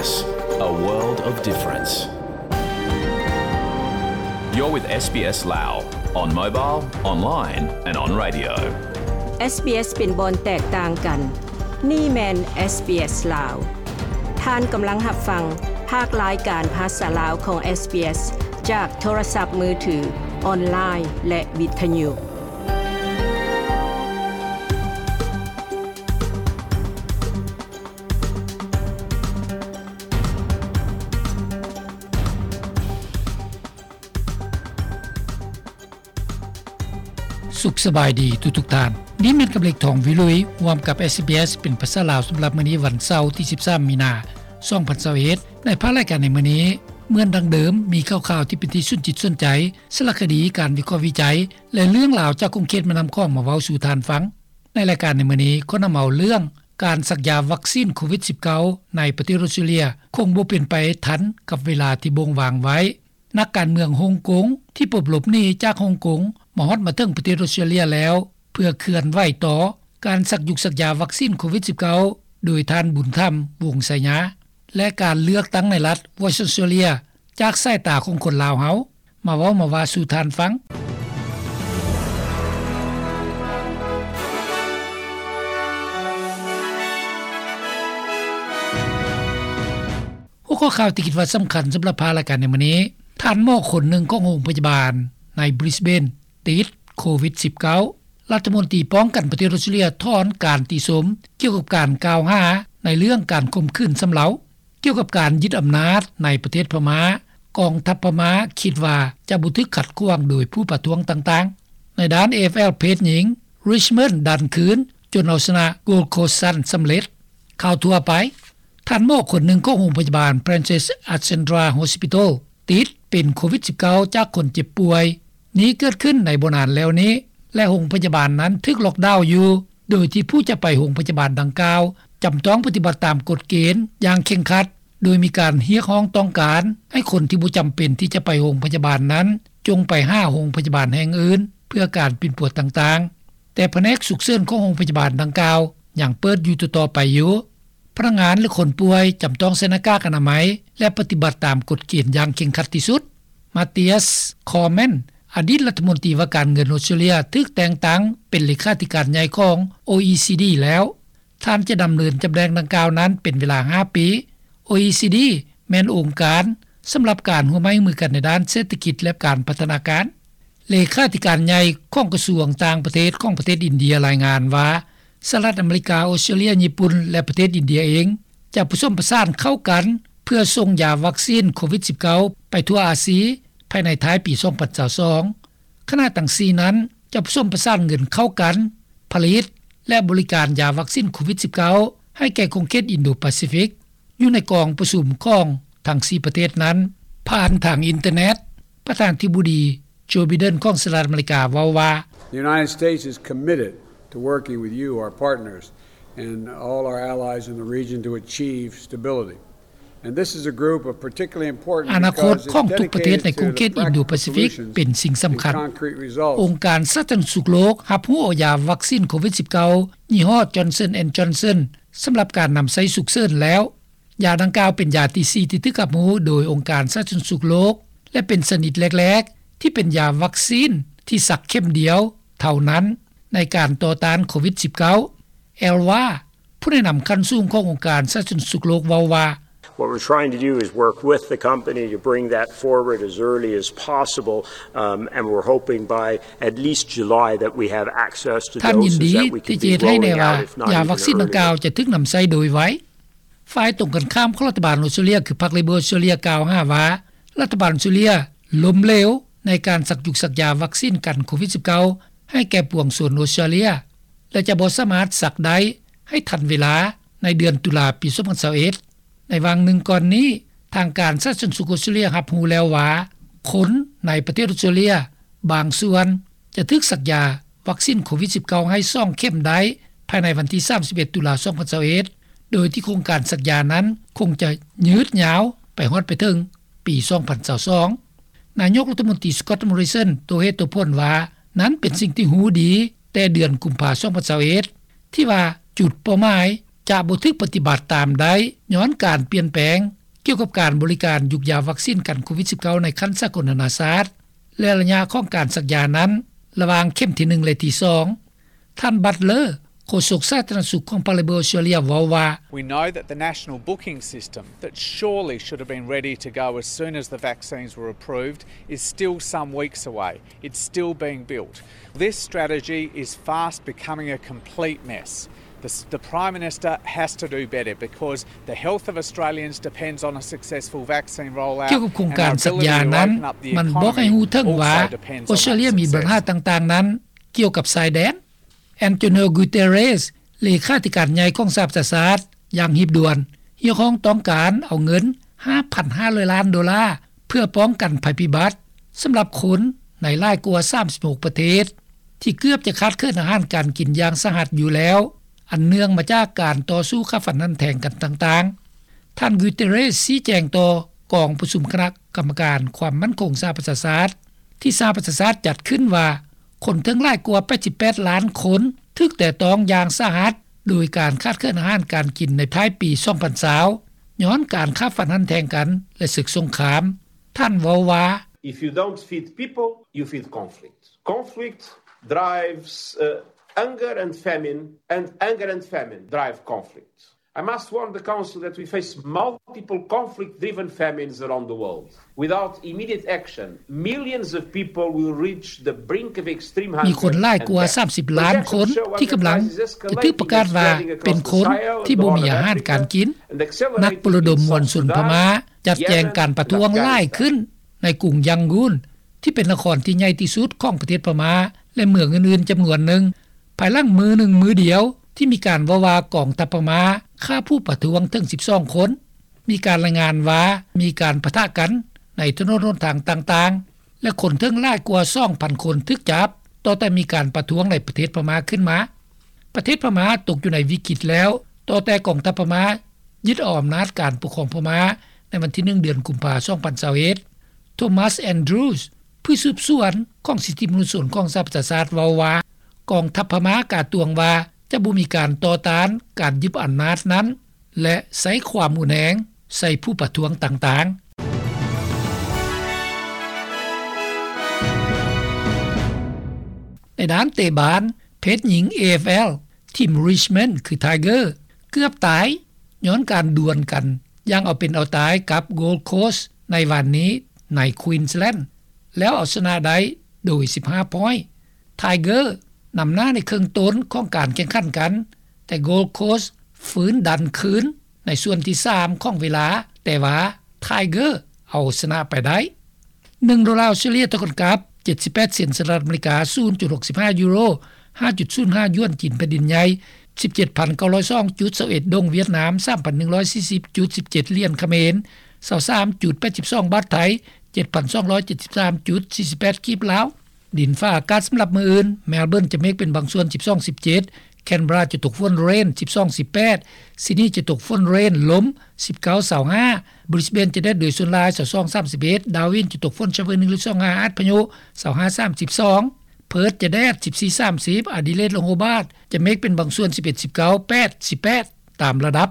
A world of difference. You're with SBS Lao on mobile, online and on radio. SBS ເປັນບ່ອນແຕກຕ່າງກັນ. ນີ້ແມ່ນ SBS ລາວ. ທ່ານກຳລັງຮັບຟັງພາກລາຍການພາສາລາວຂອງ SBS ຈາກໂທລະສັບມືຖື, ອອນລາຍ ແລະ ວິທະຍຸ. ສຸກສະບາຍດີທຸກໆທ່ານ. ນີ້ແມ່ນກຳເລັກ ທອງວິລຸຍ ຮ່ວມກັບ SBS ເປັນພາສາລາວ ສຳລັບມື້ນີ້ ວັນເສົາ ທີສິບສາມ ມີນາ ສອງພັນຊາວເອັດ. ໃນພາກລາຍການໃນມື້ນີ້, ເໝືອນດັ່ງເດີມ, ມີຂ່າວໆທີ່ເປັນທີ່ສົນຈິດສົນໃຈ, ສາລະຄະດີ, ການວິເຄາະວິໄຈ ແລະ ເລື່ອງລາວຈາກຂົງເຂດແມ່ນ້ຳຂອງມາເວົ້າສູ່ທ່ານຟັງ. ໃນລາຍການໃນມື້ນີ້ ຂໍນຳເອົາເລື່ອງການສັກຢາວັກຊີນໂຄວິດສິບເກົ້າ ໃນປະເທດອົດສະຕຣາເລຍ ຄົງບໍ່ເປັນໄປທັນກັບເວລາທີ່ບົ່ງວາງໄວ້. ນັກການເມືອງຮົງກົງທີ່ປົບຫຼົບໜີຈາກຮົງກົງ ມາຮອດມາເຖິງປະເທດອົດສະຕຣາເລຍແລ້ວ ເພື່ອເຄື່ອນໄຫວຕໍ່ການສັກຢຸກສັກຢາວັກຊີນໂຄວິດສິບເກົ້າ ໂດຍທ່ານ ບຸນທຳ ວົງໄຊຍາ ແລະ ການເລືອກຕັ້ງໃນລັດ Western Australia ຈາກສາຍຕາຂອງຄົນລາວເຮົາ ມາເວົ້າມາວ່າສູ່ທ່ານຟັງ. ຫົວຂໍ້ຂ່າວທີ່ຄິດວ່າສຳຄັນສຳລັບພາກລາຍການໃນມື້ນີ້, ທ່ານໝໍຄົນໜຶ່ງຂອງໂຮງພະຍາບານໃນ Brisbane ຕິດໂຄວິດສິບເກົ້າ. ລັດຖະມົນຕີປ້ອງກັນປະເທດອົດສະຕຣາເລຍຖອນການຕິຊົມກ່ຽວກັບການກ່າວຫາໃນເລື່ອງການຂົ່ມຂືນຊຳເລົາ. ກ່ຽວກັບການຍຶດອຳນາດໃນປະເທດພະມ້າ, ກອງທັບພະມ້າຄິດວ່າຈະບໍ່ຖືກຂັດຂວາງໂດຍຜູ້ປະທ້ວງຕ່າງໆ. ໃນດ້ານ AFL ເພດຍິງ, Richmond ດັນຄືນຈົນເອົາຊະນະ Gold Coast Suns ສຳເລັດ. ຂ່າວທົ່ວໄປ, ທ່ານໝໍຄົນໜຶ່ງຂອງໂຮງພະຍາບານ Princess Alexandra Hospital ຕິດເປັນໂຄວິດສິບເກົ້າ ຈາກຄົນເຈັບປ່ວຍ. ນີ້ເກີດຂຶ້ນໃນບໍ່ນານແລ້ວນີ້ ແລະ ໂຮງພະຍາບານນັ້ນຖືກລັອກດາວຢູ່ ໂດຍທີ່ຜູ້ຈະໄປໂຮງພະຍາບານດັ່ງກ່າວ ຈຳຕ້ອງປະຕິບັດຕາມກົດເກນຢ່າງເຄັ່ງຄັດ, ໂດຍມີການຮຽກຮ້ອງຕ້ອງການໃຫ້ຄົນທີ່ບໍ່ຈຳເປັນທີ່ຈະໄປໂຮງພະຍາບານນັ້ນ ຈົ່ງໄປຫາໂຮງພະຍາບານແຫ່ງອື່ນເພື່ອການປິ່ນປົວຕ່າງໆ, ແຕ່ພະແນກສຸກເສີນຂອງໂຮງພະຍາບານດັ່ງກ່າວຍັງເປີດຢູ່ຕໍ່ໆໄປຢູ່. ພະນັກງານ ແລະ ຄົນປ່ວຍຈຳຕ້ອງໃສ່ໜ້າກາກອະນາໄມ ແລະ ປະຕິບັດຕາມກົດເກນຢ່າງເຄັ່ງຄັດທີ່ສຸດ. Mathias Cormann ອະດີດລັດຖະມົນຕີວ່າການເງິນອົດສະຕຣາເລຍ ຖືກແຕ່ງຕັ້ງເປັນເລຂາທິການໃຫຍ່ຂອງ ໂອອີຊີດີ ແລ້ວ. ທ່ານຈະດຳເນີນຕຳແໜ່ງດັ່ງກ່າວນັ້ນເປັນເວລາຫ້າປີ. ໂອອີຊີດີ ແມ່ນອົງການສຳລັບການຮ່ວມໄມ້ຮ່ວມມືກັນໃນດ້ານເສດຖະກິດ ແລະ ການພັດທະນາການ. ເລຂາທິການໃຫຍ່ຂອງກະຊວງຕ່າງປະເທດຂອງປະເທດອິນເດຍລາຍງານວ່າ ສະຫະລັດອາເມລິກາ, ອົດສະຕຣາເລຍ, ຍີ່ປຸ່ນ ແລະ ປະເທດອິນເດຍເອງ ຈະປະສົມປະສານເຂົ້າກັນ ເພື່ອສົ່ງຢາວັກຊີນໂຄວິດສິບເກົ້າ ໄປທົ່ວອາຊີ ພາຍໃນທ້າຍປີສອງພັນຊາວສອງ. ຄະນະທັງສີ່ນັ້ນຈະປະສົມປະສານເງິນເຂົ້າກັນ ຜະລິດ ແລະ ບໍລິການຢາວັກຊີນໂຄວິດສິບເກົ້າ ໃຫ້ແກ່ຂົງເຂດອິນໂດປາຊີຟິກ ຢູ່ໃນກອງປະຊຸມຂອງທັງສີ່ປະເທດນັ້ນ ຜ່ານທາງອິນເຕີເນັດ. ປະທານາທິບໍດີ ໂຈ ໄບເດັນ ຂອງສະຫະລັດອາເມລິກາເວົ້າວ່າ, The United States is committed to working with you, our partners, and all our allies in the region to achieve stability. And this is a group of particularly important ອະນາຄົດຂອງທຸກປະເທດໃນຂົງເຂດອິນໂດປາຊີຟິກເປັນສິ່ງສຳຄັນ. ອົງການສາທາລະນະສຸກໂລກຮັບຮູ້ເອົາຢາວັກຊີນໂຄວິດສິບເກົ້າ ຍີ່ຫໍ້ Johnson and Johnson ສຳລັບການນຳໃຊ້ສຸກເສີນແລ້ວ. ຢາດັ່ງກ່າວເປັນຢາທີສີ່ທີ່ຖືກຮັບຮູ້ໂດຍອົງການສາທາລະນະສຸກໂລກ ແລະ ເປັນຊະນິດແລກໆທີ່ເປັນຢາວັກຊີນທີ່ສັກເຂັມດຽວເທົ່ານັ້ນໃນການຕໍ່ຕ້ານໂຄວິດສິບເກົ້າ. ແອລວາ ຜູ້ແນະນຳຂັ້ນສູງຂອງອົງການສາທາລະນະສຸກໂລກເວົ້າວ່າ, What we're trying to do is work with the company to bring that forward as early as possible, um, and we're hoping by at least July that we have access to doses that we can be rolling out, if not even earlier. ທ່ານຍິນດີທີ່ຈະເຮັດໃຫ້ແນ່ວ່າຢາວັກຊີນດັ່ງກ່າວຈະຖືກນຳໃຊ້ໂດຍໄວ. ຝ່າຍຕົງກັນຂ້າມຂອງລັດຖະບານອົດສະຕຣາເລຍ ຄືພັກເລເບີອົດສະຕຣາເລຍ ກ່າວຫາວ່າ ລັດຖະບານອົດສະຕຣາເລຍລົ້ມເຫຼວໃນການສັກຢຸກສັກຢາວັກຊີນກັນໂຄວິດສິບເກົ້າ ໃຫ້ແກ່ປວງຊົນອົດສະຕຣາເລຍ ແລະ ຈະບໍ່ສາມາດສັກໄດ້ໃຫ້ທັນເວລາໃນເດືອນຕຸລາປີສອງພັນຊາວເອັດ. ໃນຫວ່າງໜຶ່ງກ່ອນນີ້, ທາງການສາທາລະນະສຸກອົດສະຕຣາເລຍຮັບຮູ້ແລ້ວວ່າ ຄົນໃນປະເທດອົດສະຕຣາເລຍບາງສ່ວນຈະຖືກສັກຢາວັກຊີນໂຄວິດສິບເກົ້າ ໃຫ້ສອງເຂັມໄດ້ພາຍໃນວັນທີສາມສິບເອັດ ຕຸລາ ສອງພັນຊາວເອັດ ໂດຍທີ່ໂຄງການສັກຢານັ້ນຄົງຈະຍືດຍາວໄປຮອດໄປເຖິງປີສອງພັນຊາວສອງ. ນາຍົກລັດຖະມົນຕີ Scott Morrison ໂຕເຫດໂຕຜົນວ່າ ນັ້ນເປັນສິ່ງທີ່ຮູ້ດີແຕ່ເດືອນກຸມພາ ສອງພັນຊາວເອັດ ທີ່ວ່າຈຸດເປົ້າໝາຍ ຈະບໍ່ຖືກປະຕິບັດຕາມໄດ້ ຍ້ອນການປ່ຽນແປງ ກ່ຽວກັບການບໍລິການ ຢູກຢາວັກຊິນກັນໂຄວິດ-19 ໃນຂັ້ນສາກົນນາໆຊາດ ແລະ ໄລຍະຂອງການສັກຢານັ້ນ ລະຫວ່າງເຂັມທີໜຶ່ງ ແລະທີສອງ. ທ່ານ Butler ໂຄສົກສາທາລະນະສຸກຂອງພັກ Labor ອອສເຕຣເລັຽ ເວົ້າວ່າ: We know that the national booking system that surely should have been ready to go as soon as the vaccines were approved is still some weeks away. It's still being built. This strategy is fast becoming a complete mess. The, the Prime Minister has to do better because the health of Australians depends on a successful vaccine rollout. ກ່ຽວກັບໂຄງການສັກຢານັ້ນ ມັນບອກໃຫ້ຮູ້ເຖິງວ່າ ອອສເຕຣເລັຽມີບັນຫາຕ່າງໆນັ້ນ ກ່ຽວກັບຊາຍແດນ. Antonio Guterres ເລຂາທິການໃຫຍ່ຂອງສະຫະປະຊາຊາດ ຢ່າງຮີບດ່ວນ ຮຽກຮ້ອງຕ້ອງການເອົາເງິນ ຫ້າພັນຫ້າຮ້ອຍລ້ານໂດລາ ເພື່ອປ້ອງກັນໄພພິບັດ ສຳລັບຄົນໃນຫຼາຍກວ່າສາມສິບຫົກປະເທດ ທີ່ເກືອບຈະຂາດເຂີນອາຫານການກິນຢ່າງສາຫັດຢູ່ແລ້ວ ອັນເນື່ອງມາຈາກການຕໍ່ສູ້ຂ້າຟັນຫັນແທງກັນຕ່າງໆ. ທ່ານ Guterres ຊີ້ແຈງຕໍ່ກອງປະຊຸມຄະນະກຳມະການຄວາມໝັ້ນຄົງສະຫະປະຊາຊາດ ທີ່ສະຫະປະຊາຊາດຈັດຂຶ້ນວ່າ ຄົນເຖິງຫຼາຍກວ່າແປດສິບແປດລ້ານຄົນ ຖືກແຕະຕ້ອງຢ່າງສາຫັດ ໂດຍການຂາດເຂີນອາຫານການກິນໃນທ້າຍປີສອງພັນຊາວ ຍ້ອນການຂ້າຟັນຫັນແທງກັນ ແລະ ເສິກສົງຄາມ. ທ່ານເວົ້າວ່າ: If you don't feed people, you feed conflict. Conflict drives, uh, hunger and famine, and hunger and famine drive conflict. I must warn the Council that we face multiple conflict-driven famines around the world. Without immediate action, millions of people will reach the brink of extreme hunger and death. ມີຄົນຫຼາຍກວ່າສາມສິບລ້ານຄົນ ທີ່ກຳລັງຈະຖືກປະກາດວ່າເປັນຄົນທີ່ບໍ່ມີອາຫານການກິນ. ນັກປະລະດົມມວນຊົນພະມ້າ ຈັດແຈງການປະທ້ວງຫຼາຍຂຶ້ນໃນກຸງຢັງກູນ ທີ່ເປັນນະຄອນທີ່ໃຫຍ່ທີ່ສຸດຂອງປະເທດພະມ້າ ແລະ ເມືອງອື່ນໆຈຳນວນໜຶ່ງ ພາຍຫຼັງມື້ໜຶ່ງມື້ດຽວ ທີ່ມີການເວົ້າວ່າກອງທັບພະມ້າຂ້າຜູ້ປະທ້ວງເຖິງສິບສອງຄົນ. ມີການລາຍງານວ່າມີການປະທະກັນໃນຖະໜົນຫົນທາງຕ່າງໆ ແລະ ຄົນເຖິງຫຼາຍກວ່າສອງພັນຄົນຖືກຈັບ ຕໍ່ແຕ່ມີການປະທ້ວງໃນປະເທດພະມ້າຂຶ້ນມາ. ປະເທດພະມ້າຕົກຢູ່ໃນວິກິດແລ້ວ ຕໍ່ແຕ່ກອງທັບພະມ້າຍຶດເອົາອຳນາດການປົກຄອງພະມ້າ ໃນວັນທີໜຶ່ງ ເດືອນກຸມພາ ສອງພັນຊາວເອັດ. Thomas Andrews ຜູ້ສືບສວນຂອງສິດທິມະນຸດຊົນຂອງສະຫະປະຊາຊາດເວົ້າວ່າ ກອງທັບພະມ້າກາດຕວງວ່າຈະບໍ່ມີການຕໍ່ຕ້ານການຍຶດອຳນາດນັ້ນ ແລະ ໃຊ້ຄວາມຮຸນແຮງໃສ່ຜູ້ປະທ້ວງຕ່າງໆ. ໃນດ້ານເຕະບານ ເພດຍິງ ເອເອຟແອລ ທີມ Richmond ຄື Tiger ເກືອບຕາຍ ຍ້ອນການດວນກັນຢ່າງເອົາເປັນເອົາຕາຍກັບ Gold Coast ໃນວານນີ້ໃນ Queensland ແລ້ວເອົາຊະນະໄດ້ໂດຍສິບຫ້າ point. Tiger ນຳໜ້າໃນເຄິ່ງຕົ້ນຂອງການແຂ່ງຂັນກັນ, ແຕ່ Gold Coast ຟື້ນດັນຄືນໃນສ່ວນທີສາມຂອງເວລາ, ແຕ່ວ່າ Tiger ເອົາຊະນະໄປໄດ້. ໜຶ່ງໂດລາອອສເຕຣເລັຽເທົ່າກັນກັບ ເຈັດສິບແປດເຊັນສະຫະລັດອາເມລິກາ, ສູນຈຸດຫົກສິບຫ້າຢູໂຣ, ຫ້າຈຸດສູນຫ້າຢວນຈີນແຜ່ນດິນໃຫຍ່, ສິບເຈັດພັນເກົ້າຮ້ອຍສອງຈຸດຊາວເອັດດົງຫວຽດນາມ, ສາມພັນໜຶ່ງຮ້ອຍສີ່ສິບຈຸດສິບເຈັດຫຼຽນຂະເໝນ, ຊາວສາມຈຸດແປດສິບສອງບາດໄທ, ເຈັດພັນສອງຮ້ອຍເຈັດສິບສາມຈຸດສີ່ສິບແປດກີບລາວ. ດິນຟ້າອາກາດສຳລັບມື້ອື່ນ, ແມລເບີນຈະເມກເປັນບາງສ່ວນ ສິບສອງ ສິບເຈັດ, ແຄນເບຣາຈະຕົກຝົນ ເຣນ ສິບສອງ ສິບແປດ, ຊິດນີຈະຕົກຝົນ ເຣນ ລົມ ສິບເກົ້າ ຊາວຫ້າ, ບຣິສເບນຈະແດດໂດຍສ່ວນຫຼາຍ ຊາວສອງ ສາມສິບເອັດ, ດາວິນຈະຕົກຝົນຊາວໜຶ່ງ ຫຼື ຊາວຫ້າ ອາດພະຍຸ ຊາວຫ້າ ສາມສິບສອງ, ເພີດຈະແດດ ສິບສີ່ ສາມສິບ, ອາດີເລດ ແລະ ໂຮບາດຈະເມກເປັນບາງສ່ວນ ສິບເອັດ ສິບເກົ້າ, ແປດ ສິບແປດ ຕາມລະດັບ.